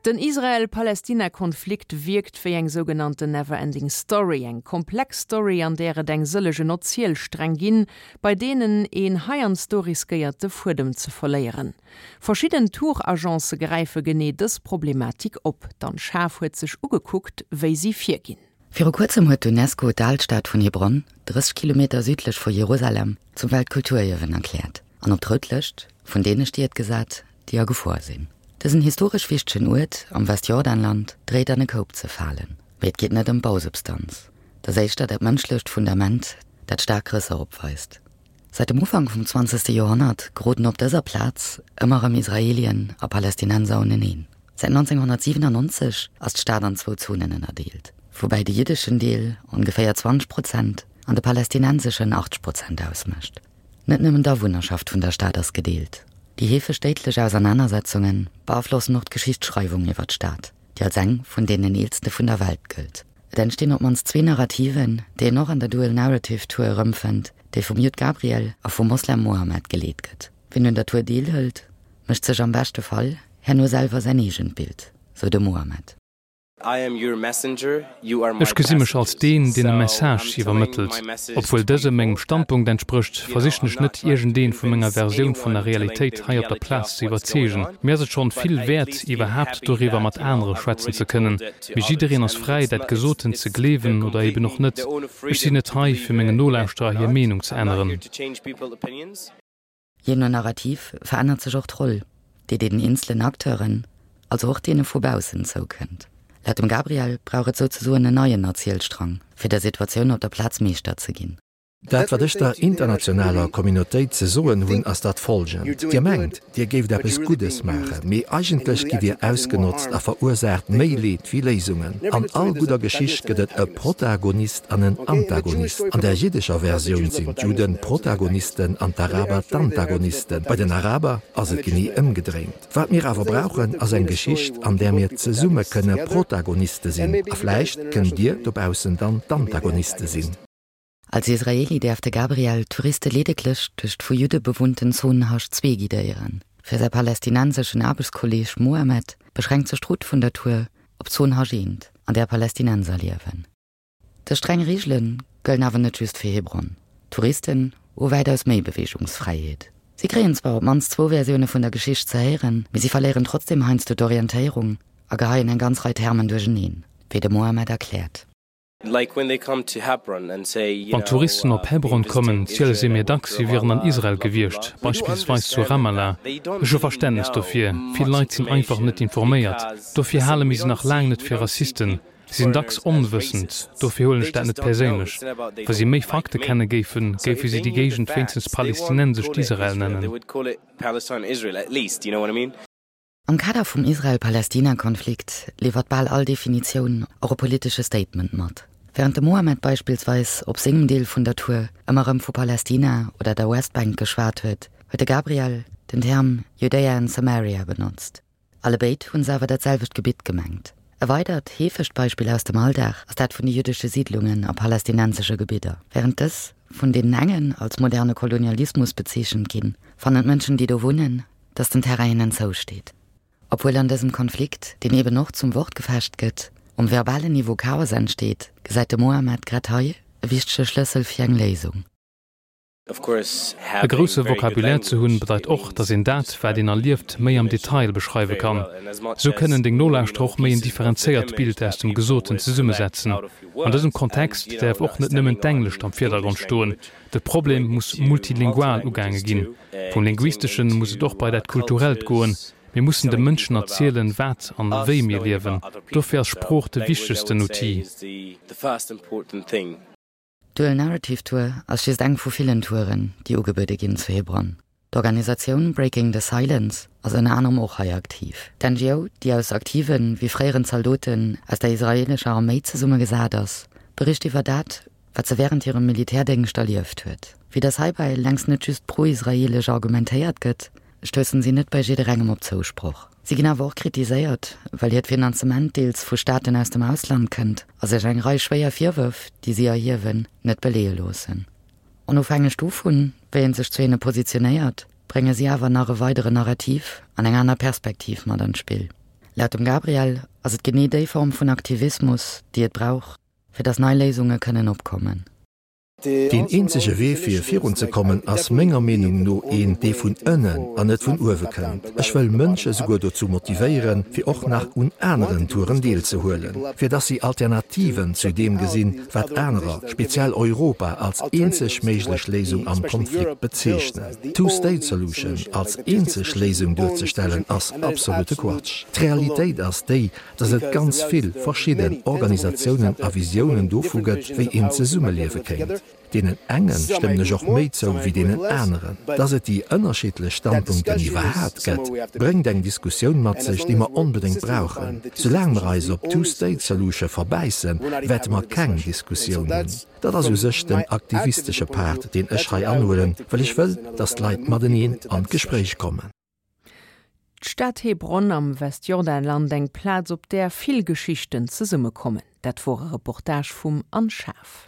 Den Israel-Palestina-Konflikt wierkt wéi eng sougenannten Never Ending Story, eng komplex Story, an där et eng sëllegen Erzielsträng ginn, bei deenen een heiansdo riskéiert de Fuedem ze verléieren. Verschidden Tour-Agencë gräife genee dës Problematik op. D'Anne Schaaf huet sech ugekuckt, wéi si virginn. Viru kuerzem huet d'UNESCO d'Alstad vun Hebron, 30 Kilometer südlech vu Jerusalem, zum Weltkulturierwen erkläert an op d'Rout Lëscht vun deene Stied gesat, déi a Gefor sinn. Dësen historesch wichtegen Uert am Westjordanland dréit an e Koup ze falen. Mee et geet net ëm d'Bausubstanz, et ass éischter dat mënschlecht Fundament, dat staark Rësser opweist. Säit dem Ufank vum zwanzegste Joerhonnert geroden op dëser Plaz ëmmer erëm Israelien a Palästinenser uneneen. Säit 1997 ass d'Stad an zwou Zonen ënnerdeelt, woubäi de jiddeschen Deel ongeféier 20 Prozent an de palästinenseschen 80 Prozent ausmécht. Net nëmmen d'Awunnerschaft vun der Stad ass gedeelt. Déi heefeg déidlech Ausernanersetzunge beaflossen och d'Geschichtsschreiwung iwwer d'Stad, déi als eng vun deenen eelste vun der Welt gëllt. Et entstinn op d'mannst zwee Narrativen, déi een och an der Dual Narrative Tour erëmfënnt, déi vum Judd Gabriel a vum Moslem Mohammed geleet gëtt. Wien un der Tour deelhëlt, mécht sech am beschte Fall herno selwer säin eegent Bild, sou de Mohammed. Ech gesi mech als deen, deen e Message iwwermëttelt. Obwuel dëse mengem Standpunkt entsprécht, versichen ech net, iergendeen vu menger Versioun vun der Realitéit hei op der Plaz ze iwwerzeegen. Mir ass et schonn vill wäert, iwwerhaapt doriwwer mat anere schwätzen ze kënnen. Mee jiddereen ass fräi, dat Gesotent ze gleewen oder eben och net. Ech sinn net hei, fir mengen Nolauschterer hir Meenung ze änneren. Jee no Narrativ verännert sech och d'Roll, déi deenen eenzelen Acteuren, also och deene vu baussen, zoukënnt. Laut dem Gabriel brauch et souzesoen en neien Erzielstrang, fir der Situatioun op der Plaz Meeschter ze ginn. Dat, wat ech der internationaler Communautéit ze soen hunn, ass dat folgend, Dir mengt, Dir géift eppes Guddes maachen, mee eigentlech gitt Dir ausgenotzt a verursaacht méi Leed wéi Léisungen. An all gudder Geschicht gëtt et e Protagonist an en Antagonist. An der jiddescher Versioun sinn d'Judden d'Protagonisten an d'Araber d'Antagonisten. Bei den Araber ass et genee ëmgedréint. Wat mir awer brauchen, ass eng Geschicht, an där mir zesumme kënne Protagoniste sinn. A vläicht kënnt Dir dobaussen dann d'Antagoniste sinn. Als Israeli däerf de Gabriel d'Touriste ledeglech duerch d'vu Judde bewunnten Zon Hasch 2 guidéieren. Fir säi palästinenseschen Aarbechtskolleeg Mohammed beschränkt sech d'Route vun der Tour op d'Zon Hasch 1, an där Palästinenser liewen. Dës streng Reegele gëllen awer net just fir Hebron. Touristen hu wäitaus méi Beweegungsfräiheet. Si kréien zwar op d'mannst zwou Versioune vun der Geschicht ze héieren, mee si verléieren trotzdeem heiansdo d'Orientéierung a geheien eng ganz Rei Termen duercheneen, wéi de Mohammed erkläert. Wann Touristen op Hebron kommen, ziele si mir dacks, si wieren an Israel gewiescht, beispillsweis zu Ramallah. Ech hu Verständnes dofir. Vill Leit sinn einfach net informéiert. Dofir hale mir si nach laang net fir Rassisten. Si sinn dacks onwëssend. Dofir huelen ech dat net perséinlech. Wa si méi Fakte kenne géifen, géife si déi Géigend wéinstens palästinensescht Israel nennen. Am Kader vum Israel-Palästina-Konflikt liwwert bal all Definitioun och e politesche Statement mat. Wärend de Mohammed beispillsweis op sengem Deel vun der Tour ëmmer erëm vu Palästina oder der Westbank geschwat huet, huet de Gabriel den Term Judäa and Samaria benotzt. Allebéid hunn se awer dat selwecht Gebitt gemengt. E weidert heefegt Beispill aus dem Alldag ass dat vun de jüddesche Siidlungen a palästinensesche Gebidder. Wärend dës vun deenen engen als moderne Kolonialismus bezeechent ginn, fannen d'Mënschen, déi do wunnen, dass den Terrain hinnen zousteet. Obwuel an dësem Konflikt, deen eben och zum Wortgefecht gëtt, um verbalen Niveau Chaos entsteet, gesäit de Mohammed grad hei e wichtege Schlëssel fir eng Léisung. E grousse Vocabulaire ze hunn, bedeit och, dass een dat, wat een erlieft, méi am Detail beschreiwe kann. Sou kënnen deng Nolauschterer och méi en differenzéiert Bild aus dem Gesoten zesummesetzen. An dësem Kontext däerf och net nëmmen d'Englescht am Virdergrond stoen. De Problem muss multilingual ugaange ginn. Vum Linguisteschen muss et och bei dat Kulturellt goen. Mir mussen de Mënschen erzielen, wat an wéi mir liewen. Dofir ass Sprooch de wichtegsten Outil. D'Dual Narrative Tour ass just eng vu villen Touren, déi ugebuede ginn zu Hebron. D'Organisatioun Breaking the Silence ass ënner anerem och hei aktiv. D'NGO, déi aus aktive wéi fréieren Zaldoten aus der israeelescher Arméi zesummegesat ass, bericht iwwer dat, wat se wärend hirem Militärdéngscht erlieft huet. Vue dass heibäi längst net just pro-israeelesch argumentéiert gëtt, stoussen si net bei jidderengem op Zousproch. Si ginn awer och kritiséiert, well hiert Finanzement deels vu Staaten aus dem Ausland kënnt a sech eng Rei schwéier Virwërf, déi si erhiewen, net beleeë loossen. Onofhängeg dovun, wéi ee sech zu hinne positionéiert, brénge si awer nach e weideren Narrativ an eng aner Perspektiv mat an d'Spill. Laut dem Gabriel ass et genee déi Form vun Aktivismus, déi et brauch, fir datt nei Léisunge kënnen opkommen. Deen eenzege Wee fir virunzekommen ass menger Meenung no een, dee vun ënnen an net vun uewe kënnt. Ech wëll Mënsche souguer dozou motivéieren, fir och nach un aneren Touren deelzehuelen, fir dass si Alternativen zu deem gesinn, wat anerer, speziell Europa, als eenzeg méiglech Léisung am Konflikt bezeechnen. D'Two-State-Solution als eenzeg Léisung duerzestellen ass absolute Quatsch. D'Realitéit ass déi, dass et ganz vill verschidden Organisatiounen a Visiounen dovu gëtt, wéi een zesummeliewe kéint. Deenen enge stëmmen ech och méi zou wéi deenen aneren. Dass et déi ënnerschiddlech Standpunkten iwwerhaapt gëtt, bréngt eng Diskussioun mat sech, déi mer onbedéngt brauchen. Soulaang mer eis op d'Two-State-Solution verbäissen, wäerte mer keng Diskussioun hunn. Dat ass u sech den aktivistesche Part, deen ech hei anhuelen, well ech wëll, dass d'Leit mateneen an d'Gespréich kommen. D'Stad Hebron am Westjordanland, eng Plaz op där vill Geschichten zesummekommen. Dat wor e Reportage vum Anne Schaaf.